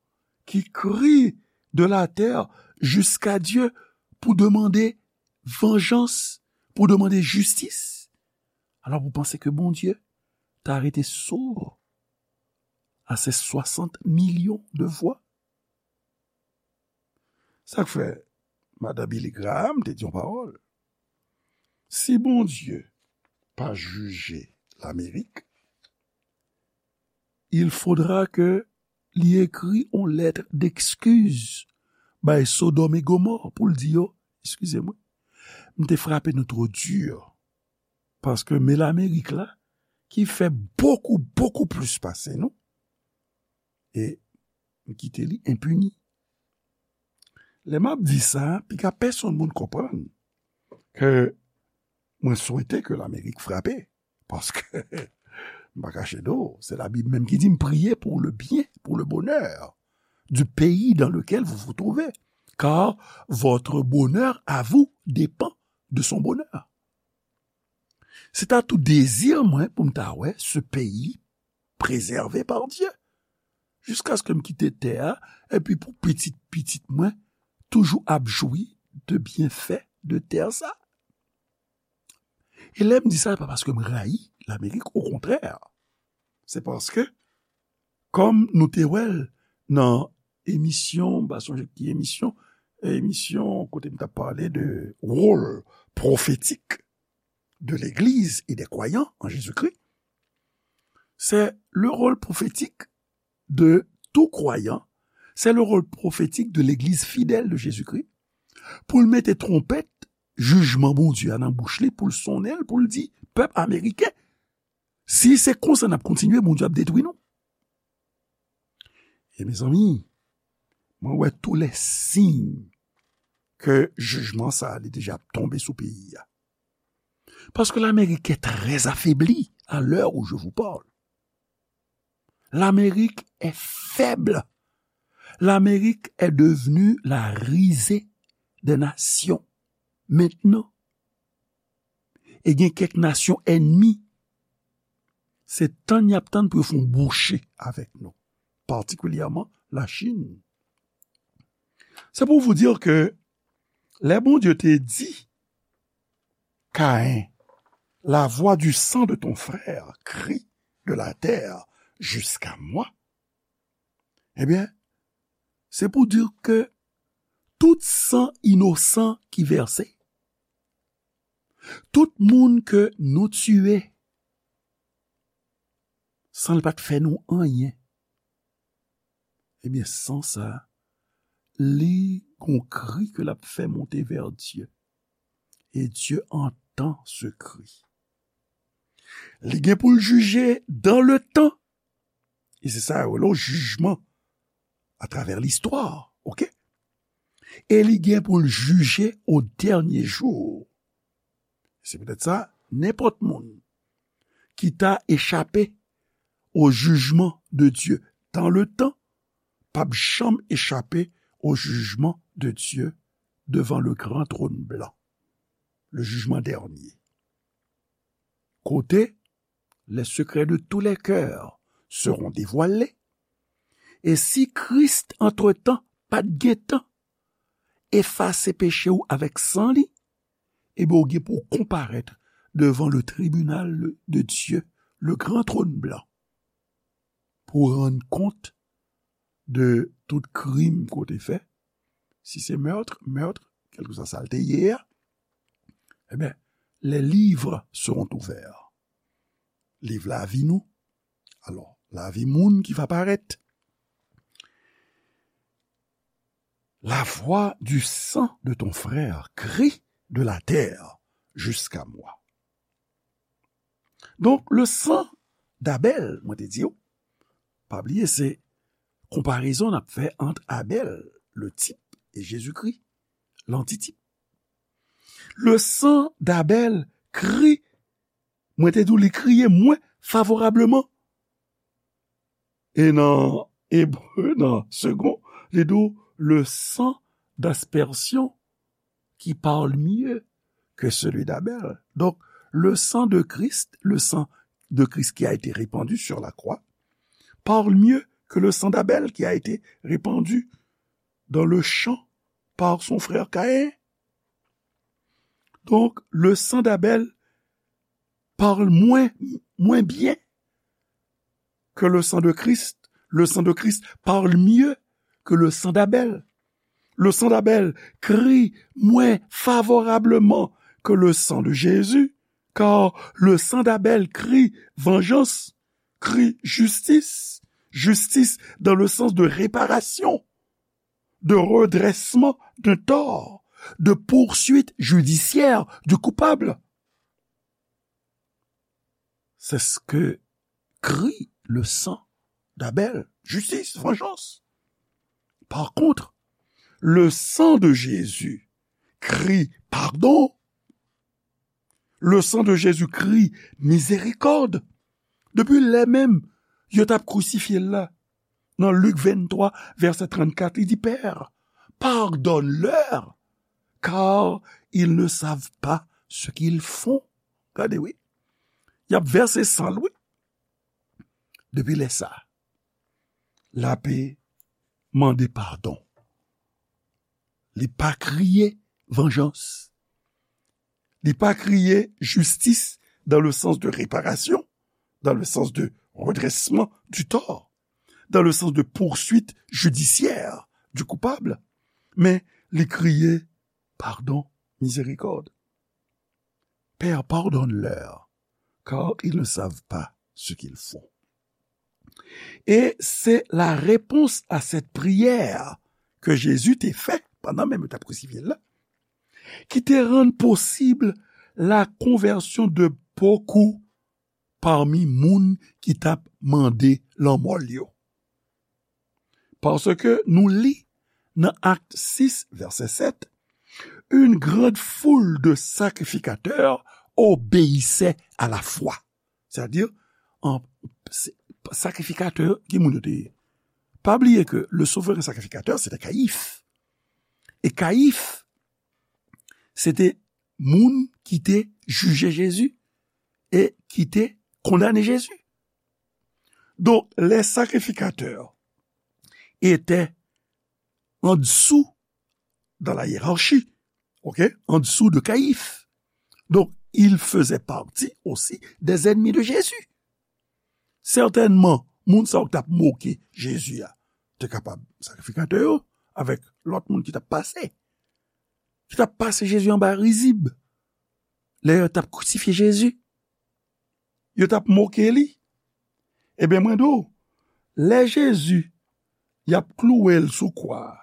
qui crient de la terre jusqu'à Dieu pour demander vengeance, pour demander justice. Alors, vous pensez que Bondye ta rete sourd à ces soixante millions de voix? Sa k fè madan Billy Graham te di yon pawòl. Si Bondye pa jije Lamerik, il faudra que li ekri yon lèt d'excuse bay Sodòm e Gomò pou l di yo, eskize mwen, m te frape nou twò di, paske men Lamerik la, ki fè bokou, bokou plis pase nou, e m kite li enpini. Lè m ap di sa, piga pèsonn moun konprann ke mwen swete ke Lamerik frape, paske m pa kache do, se Labib menm ki di m, priez pour le bien, pour le bonheur du pays dans lequel vous vous trouvez, car votre bonheur à vous dépend de son bonheur. Se ta tou dezi mwen pou m ta wè ce pays préservé par Dieu. Jiskaske m kite tè a, epi pou pitit pitit mwen toujou ap jwi de byenfè de tè sa. E lè m di sa, se pa paske m rayi Lamerik, okontrè, se paske, kòm nou te wè l nan emisyon, m pa sonje ki emisyon, emisyon kote m t ap pale de wòl pwofetik de legliz e de kwayan an Jezikri, c'est le rôle prophétique de tout croyant, c'est le rôle prophétique de legliz fidèl de Jezikri, pou l mete twonpèt jijman Bondye a nan bouch li, pou l sonnen l, pou l di pèp ameriken, si se konsa n ap kontinye, Bondye ap detwi nou. E mezanmi, mwen wè tou lè siy ke jijman sa a li deja ap tonbe sou peyi a. Paske Lamerik est très affaiblie à l'heure où je vous parle. Lamerik est faible. Lamerik est devenue la risée des nations. Mentnan, e gen kèk nasyon ènmi, se tann y ap tann pou yo fè yon bouche avèk nou, patikilyèman Lachin. Se pou vous dire ke lè Bondye te di Kayen, la voix du sang de ton frère crie de la terre jusqu'à moi, ebyen, se pou di ke tout san inosan ki vèse, tout moun ke nou tiye, san l pa t fè nou anyen, ebyen, san sa, li gon kri ke l ap fè monte vè Dye. E Dye antan se kri. Li gen pou l jije dans le temps. E se sa yo rele yon jijman atravè listwa, oke? E li gen pou l jije o dènye jou. Se poutèt sa, nenpòt moun ki ta echape o jijman de Dye dans le temps p ap janm echape o jijman de Dye devan le gran tròn blan, le jijman dènye. Kote les secrets de tous les cœurs seront dévoilés. E si Kris, antretan, pa t gentan efase peche w avèk san li, ebyen, w gen pou w konparèt devan le tribunal de Dieu, le grand trône blanc, pou w rann kont de tout krim ke w te fè. Si se mèt, mèt, kèlkeswa sa l te ye a, ebyen, les livres seront ouverts. Liv lavi nou. Alò, lavi moun ki va parèt. La voix du sang de ton frère crie de la terre jusqu'à moi. Donk, le sang d'Abel, mwen te di w, pa bliye, se konparezon n ap fè ant Abèl, le type, e Jezikri, l'antitype. Le sang d'Abel crie, mwen te di w, li kriye mwen favorableman. E nan Ebre, nan Segond, li di w, le sang d'aspersion qui parle mieux que celui d'Abel. Donc, le sang de Christ, le sang de Christ qui a été répandu sur la croix, parle mieux que le sang d'Abel qui a été répandu dans le champ par son frère Caïn. Donc, le sang d'Abel parle moins, moins bien que le sang de Christ. Le sang de Christ parle mieux que le sang d'Abel. Le sang d'Abel crie moins favorablement que le sang de Jésus, car le sang d'Abel crie vengeance, crie justice, justice dans le sens de réparation, de redressement d'un tort, de poursuite judiciaire du coupable. C'est ce que crie le sang d'Abel. Justice, vengeance. Par contre, le sang de Jésus crie pardon. Le sang de Jésus crie miséricorde. Depi lè menm yo t ap krisifye l la, nan Lik venntwa, vèsè trannkat, li di, Père, pardonne-leur, car ils ne savent pas ce qu'ils font. Gade, wi. Y ap vèse san l, wi. Depi lè sa, l ape mande padon. Li pa kriye vanjans. Li pa kriye jistis dans le sens de réparation, dans le sens de redressement du tort, dans le sens de poursuite judiciaire du coupable, men li kriye, pardon, miséricorde. Père, pardonne-leur, car ils ne savent pas ce qu'ils font. E se la repons a sèt priyè ke Jezi te fè pandan menm yo t ap krisifye l la, ki te rann posib la konvèsyon de bokou pami moun ki t ap mande lanmò l yo. Paske nou li nan Akt sis, vèsè sèt, une grande foule de sacrificateurs obéissaient à la foi. Sètadi, an, se, sakrifikatè, ki moun yo te ye? Pa bliye ke le souvren sakrifikatè, se te Kayif. E Kayif, se te moun ki te jije Jezi e ki te kondane Jezi. Donk, les sacrificateurs étaient en dessous dans la hiérarchie, ok, en dessous de Caïphe. Donc, ils faisaient partie aussi des ennemis de Jésus. Sètènman, moun sa yo k t ap moke Jezi a, te kapab sakrifikatè yo, avèk lòt moun ki t ap pase, ki t ap pase Jezi anba rizib, lè yo t ap krisifye Jezi. Yo t ap moke li. Ebyen, mwen di w, lè Jezi, y ap klouwe l sou kwa a,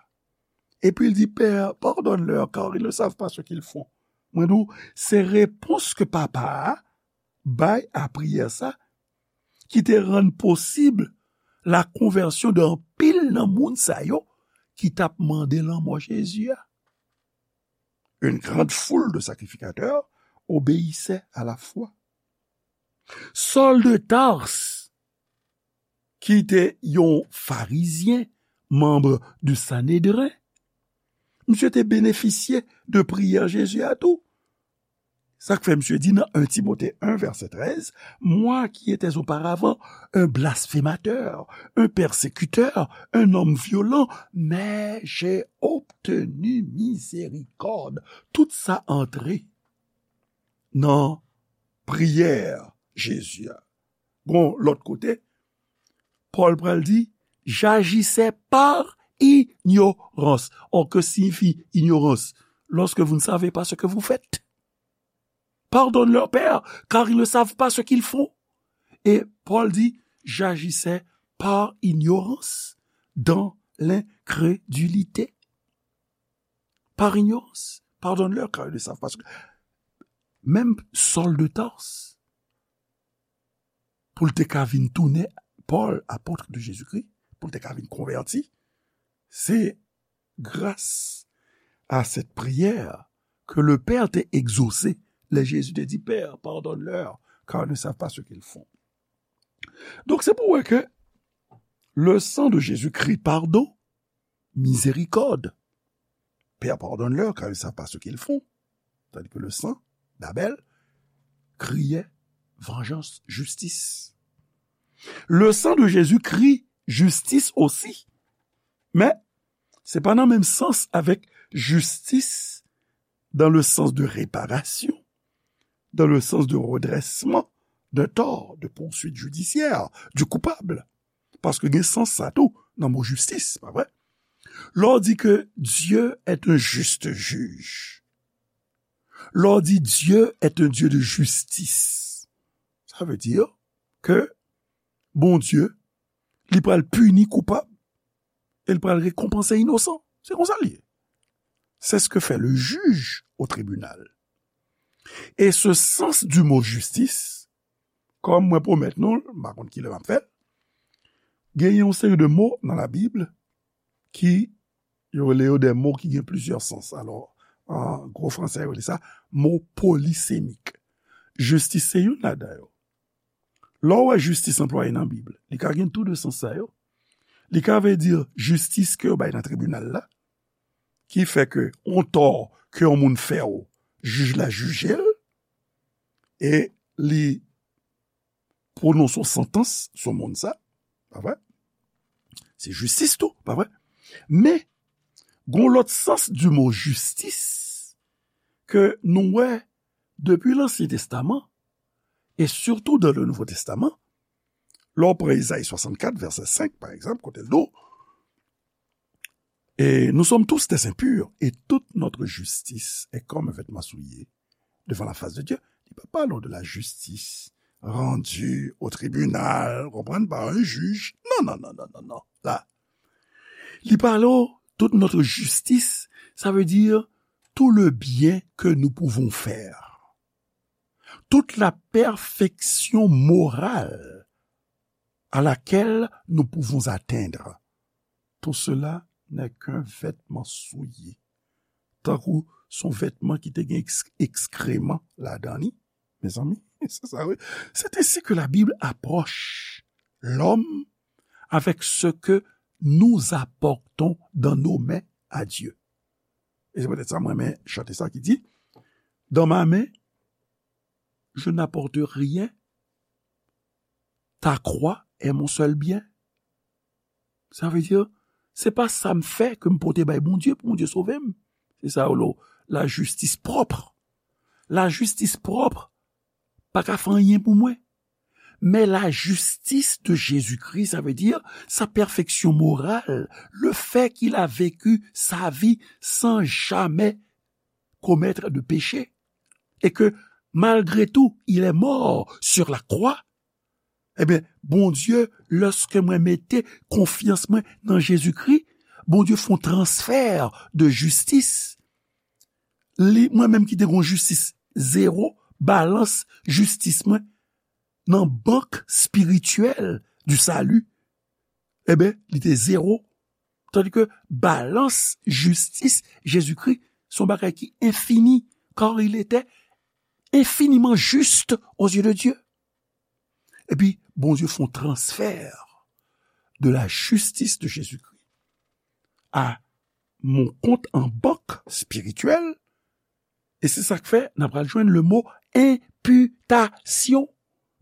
epi l di, Père, pardonne-leur, car ils ne savent pas ce qu'ils font. Mwen di w, se repons ke Papa a bay a priyè sa, ki te rann posib la konvèsyon de anpil nan moun sa yo ki t ap mande lanmò Jezi a. Une grande foule de sacrificateurs obéissait à la foi. Saul de Tarse, ki te yon farizyen, manm du Sanedren, misye te benefisye de priyè Jezi a tou. Sa k fè misye di nan un Timote un, vèsè trèz, Moi qui étais auparavant un blasphémateur, un persécuteur, un homme violent, mais j'ai obtenu miséricorde. Tout sa antre nan priyè Jezi a. Gon lòt kote, Pòl pral di, J'agissais par ignorance. Or, que signifie ignorance? Lorsque vous ne savez pas ce que vous faites. Pardonne-leur, Père, car ils ne savent pas ce qu'ils font. Et Paul dit, J'agissais par ignorance dans l'incrédulité. Par ignorance. Pardonne-leur, car ils ne savent pas ce que... Menm Saul de Tarse, pou l te ka vin tounen Paul, apôtre de Jésus-Christ, pou l te ka vin konvèti, se gras a cette prière que le Père te exaucé. Lè Jezi te di, Père, pardonne-leur, car ils ne savent pas ce qu'ils font. Donk, se pou wè ke le sang de Jésus crie pardon, miséricorde. Père, pardonne-leur, car ils ne savent pas ce qu'ils font. Tandis que le sang d'Abel criait vengeance, justice. Le sang de Jésus crie justice aussi. Men, se pa nan menm sans avèk justice dans le sens de réparation, dans le sens de redressement d'un tort, de poursuite judiciaire du coupable. Paske gen sans sa tou nan mo jistis, pa vre? Lè w di ke Dieu est un juste juge, lè w di Dieu est un Dieu de justice, sa vle di ke Bondye, li pral pini koupab e li pral rekonpanse inosan. Se konsa l ye. C'est ce que fait le juge au tribunal. Et ce sens du mot justice, kòm mwen pwomèt nou l, m pa konn kilè m ap fè l, gen yon seri de mo nan Labib ki yo rele yo de mo ki gen plizyè sans. Alò, an gwo fransè, yo rele sa mo polisemik. Jistis se youn ladan yo. Lè w wè jistis anplwaye nan Bib, li ka gen tou de sans sa yo. Li ka vle di jistis ke yo bay nan tribinal la, ki fè ke yon tò ke yon moun fè w, jij la jije l, e li pwononse yon santans sou moun sa, pa vre? Se jistis tou, pa vre? Men, gon lòt sans di mo jistis ke nou wè depi Lansyen Testaman, Et surtout dans le Nouveau Testament, lè w pran Ezayi swasannkat, vèsè senk, pa egzanp, kote l di w, et nous sommes tous des impurs, et toute notre justice est comme un vêtement souillé devant la face de Dieu. Li pa pale w de la justice rendue au tribunal, konprann, par un juge. Non, non, non, non, non, non. La, li pale w toute notre justice, ça veut dire tout le bien que nous pouvons faire, toute la perfection morale à laquelle nous pouvons atteindre. Tout cela n'est qu'un vêtement souillé. Tankou se yon vètman ki te gen eks-, ekskreman ladan li. Mezanmi, se sa, wi. C'est ainsi que la Bible approche l'homme avec ce que nous apportons dans nos mains à Dieu. E se poutèt sa mwen renmen chante sa ki di, dans ma main, je n'apporte rien, ta croix est mon seul bien. Sa vle di, se pa sa m fè ke m pote bay Bondye pou Bondye sove m. Se sa yo rele lajistis pwòp. Lajistis pwòp pa ka fè anyen pou mwen. Mais la justice de Jésus-Christ, ça veut dire sa perfection morale, le fait qu'il a vécu sa vie sans jamais commettre de péché, et que malgré tout, il est mort sur la croix, ebyen, Bondye, lèske mwen mete konfyans mwen nan Jezikri, Bondye fè yon transfè de jistis. Li, mwen menm ki te gen yon jistis zewo, balans jistis mwen nan bank espirityèl di sali, ebyen, li te zewo. Tandis ke balans jistis Jezikri, se yon bagay ki enfini, car il était infiniment juste aux yeux de Dieu. Epi, Bondye fè yon transfè de la justice de Jésus-Christ à mon compte en banque spirituel, e se sa k fè n ap pral jwenn le mo imputation.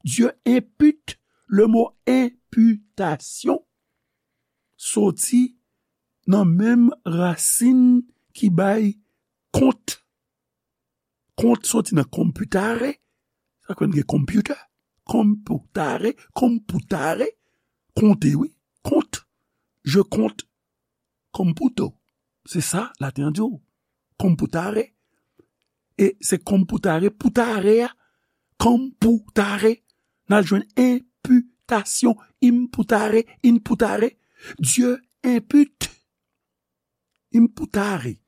Dieu impute. Le mo imputation soti nan menm rasin ki bay kont. Kont soti nan computare. Sa k fè n gen computer? Computare, computare. Konte, wi. Kont. Je compte computo. Se sa, laten an di w. Computare. E se computare, putare a. Computare. N al jwenn imputation. Imputare, imputare. Dieu impute. Imputare.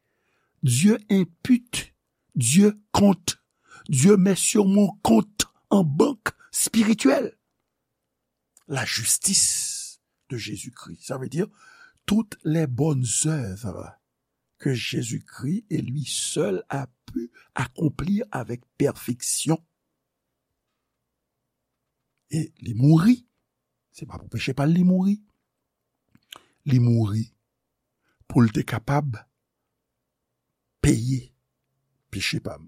Dieu impute. Dieu compte. Dieu met sur mon compte en banque spirituelle la justice de Jésus-Christ. Ça veut dire toutes les bonnes œuvres que Jésus-Christ et lui seul a pu accomplir avec perfection. E li mouri. Se pa pou peche pa l li mouri. Li mouri pou l te kapab peye peche pa m.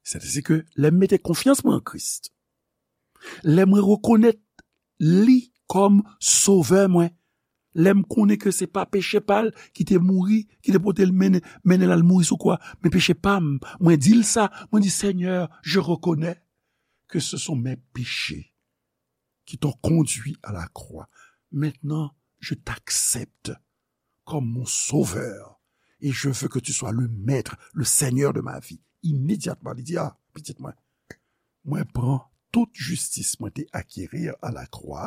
Sètadi ke lè m mete konfyans mwen an Kris, lè mwen rekonèt li kòm sovè mwen, lè m konnen ke se pa peche pa l ki te mouri, ki te pote l mennen, mennen l al mouri sou kwa, men peche pa m, mwen di l sa, mwen di, Seigneur, je reconnais que ce sont mes péchés qui t'ont conduit à la croix. Maintenant, je t'accepte comme mon sauveur et je veux que tu sois le maître, le seigneur de ma vie. Imedyatman, li di, a, pitit mwen, mwen pran tout jistis mwen te akeri a la kwa,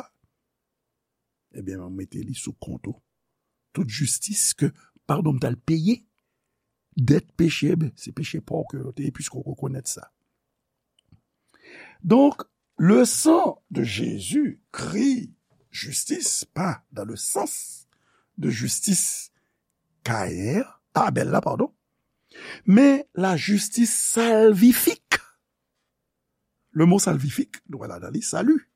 ebyen, mwen mete li sou kont ou. Tout jistis ke, padon, m t al peye, dèt peche, ebyen, se peche pa w ke yo te ye, piske w rekonèt sa. Donc, le sang de Jésus crie justice, pas dans le sens de justice Caïn, Abel la, pardon, mais la justice salvifique. Le mot salvifique, nou wè ladan li, salut.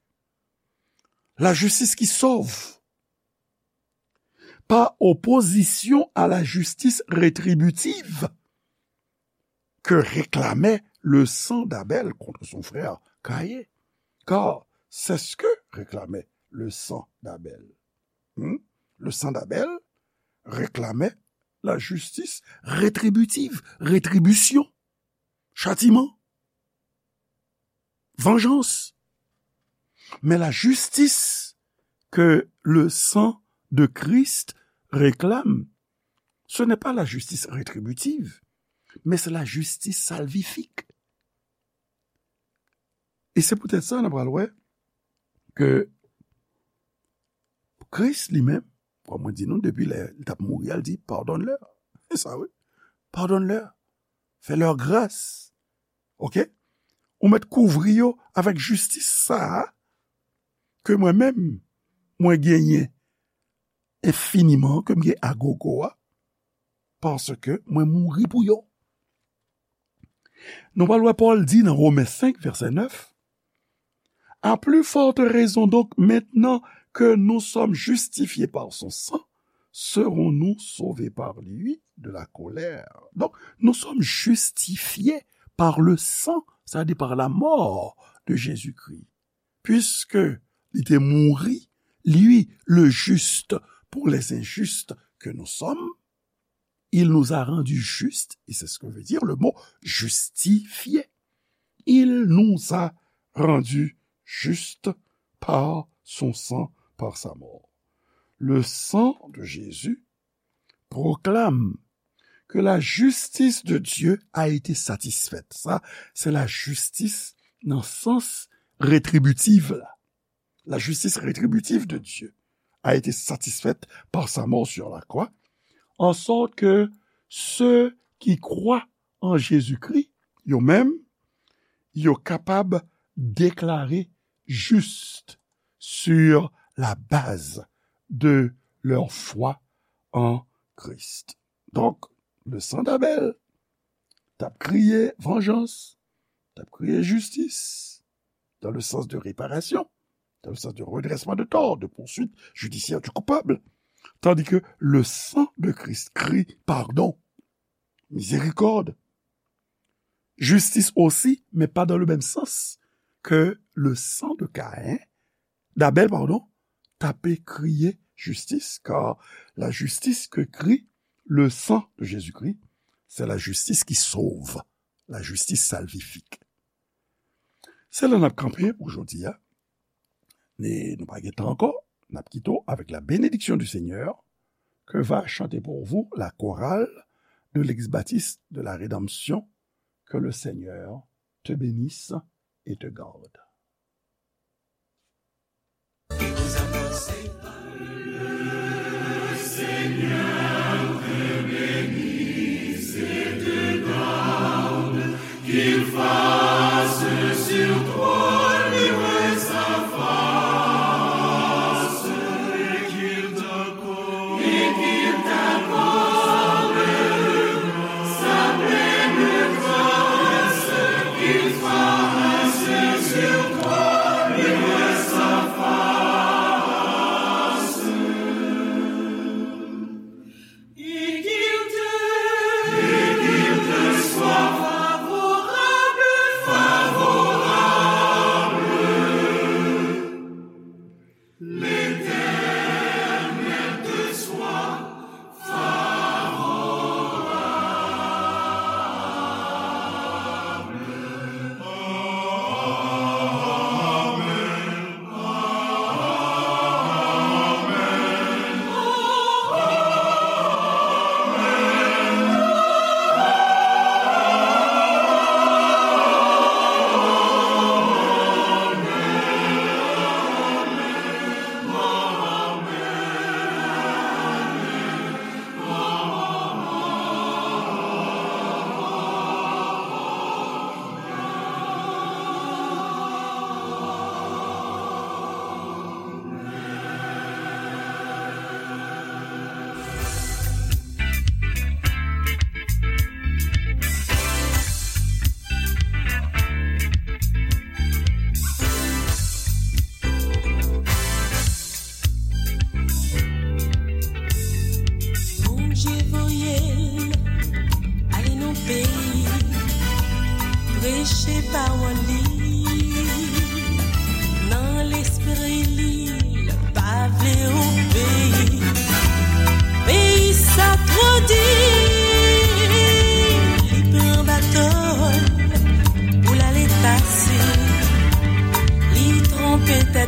La justice qui sauve. Par opposition à la justice rétributive que réclamait le sang d'Abel contre son frère Caïn. Car c'est ce que réclamait le sang d'Abel. Hmm? Le sang d'Abel réclamait la justice rétributive, rétribution, châtiment. vengeance. Mais la justice que le sang de Christ réclame, ce n'est pas la justice rétributive, mais c'est la justice salvifique. E se poutèt sa, nou pral wè ke Kris li menm, kòm mwen di nou, depi lè li t ap mouri a, l di, pardonne-leur. Se sa, wi. Pardonne-leur. Fais-leur grâce. Oke? Ou mèt kouvri yo avèk jistis sa a ke mwen menm, mwen genyen enfiniman, ke m gen agogo a, paske mwen mouri pou yo. Nou pral wè Pòl di nan Women senk, vèsè nèf, À plus forte raison donc, maintenant que nous sommes justifiés par son sang, serons-nous sauvés par lui de la colère. Donc, nous sommes justifiés par le sang, c'est-à-dire par la mort de Jésus-Christ. Puisque li te mouri, lui, le juste, pour les injustes que nous sommes, il nous a rendus justes, et c'est ce que veut dire le mot justifié. Il nous a rendus justes par son sang, par sa mort. Le sang de Jésus proclame que la justice de Dieu a été satisfaite. Sa, se lajistis nan sans retribitif la. La justice rétributive de Dieu a été satisfaite par sa mort sur la croix, en sorte que ceux qui croient en Jésus-Christ, yo menm, yo kapab deklare juste sur la base de leur foi en Christ. Donk, le sang d'Abel t ap kriye vengeance, t ap kriye justice, dans le sens de réparation, dans le sens de redressement de tort, de poursuite judiciaire du coupable. Tandis que le sang de Christ crie pardon, miséricorde, justice aussi, mais pas dans le même sens que le sang de Caïn, d'Abel, pardon, t ap kriye justice, car la justice que crie le sang de Jésus-Christ, c'est la justice qui sauve, la justice salvifique. Se la n ap kanpe pou jodi a. E nou pa gen tan ankò, n ap kite w avec la bénédiction du Seigneur, que va chanter pour vous la chorale de l'Ex-Baptiste de la Rédemption. Que le Seigneur te bénisse et te garde.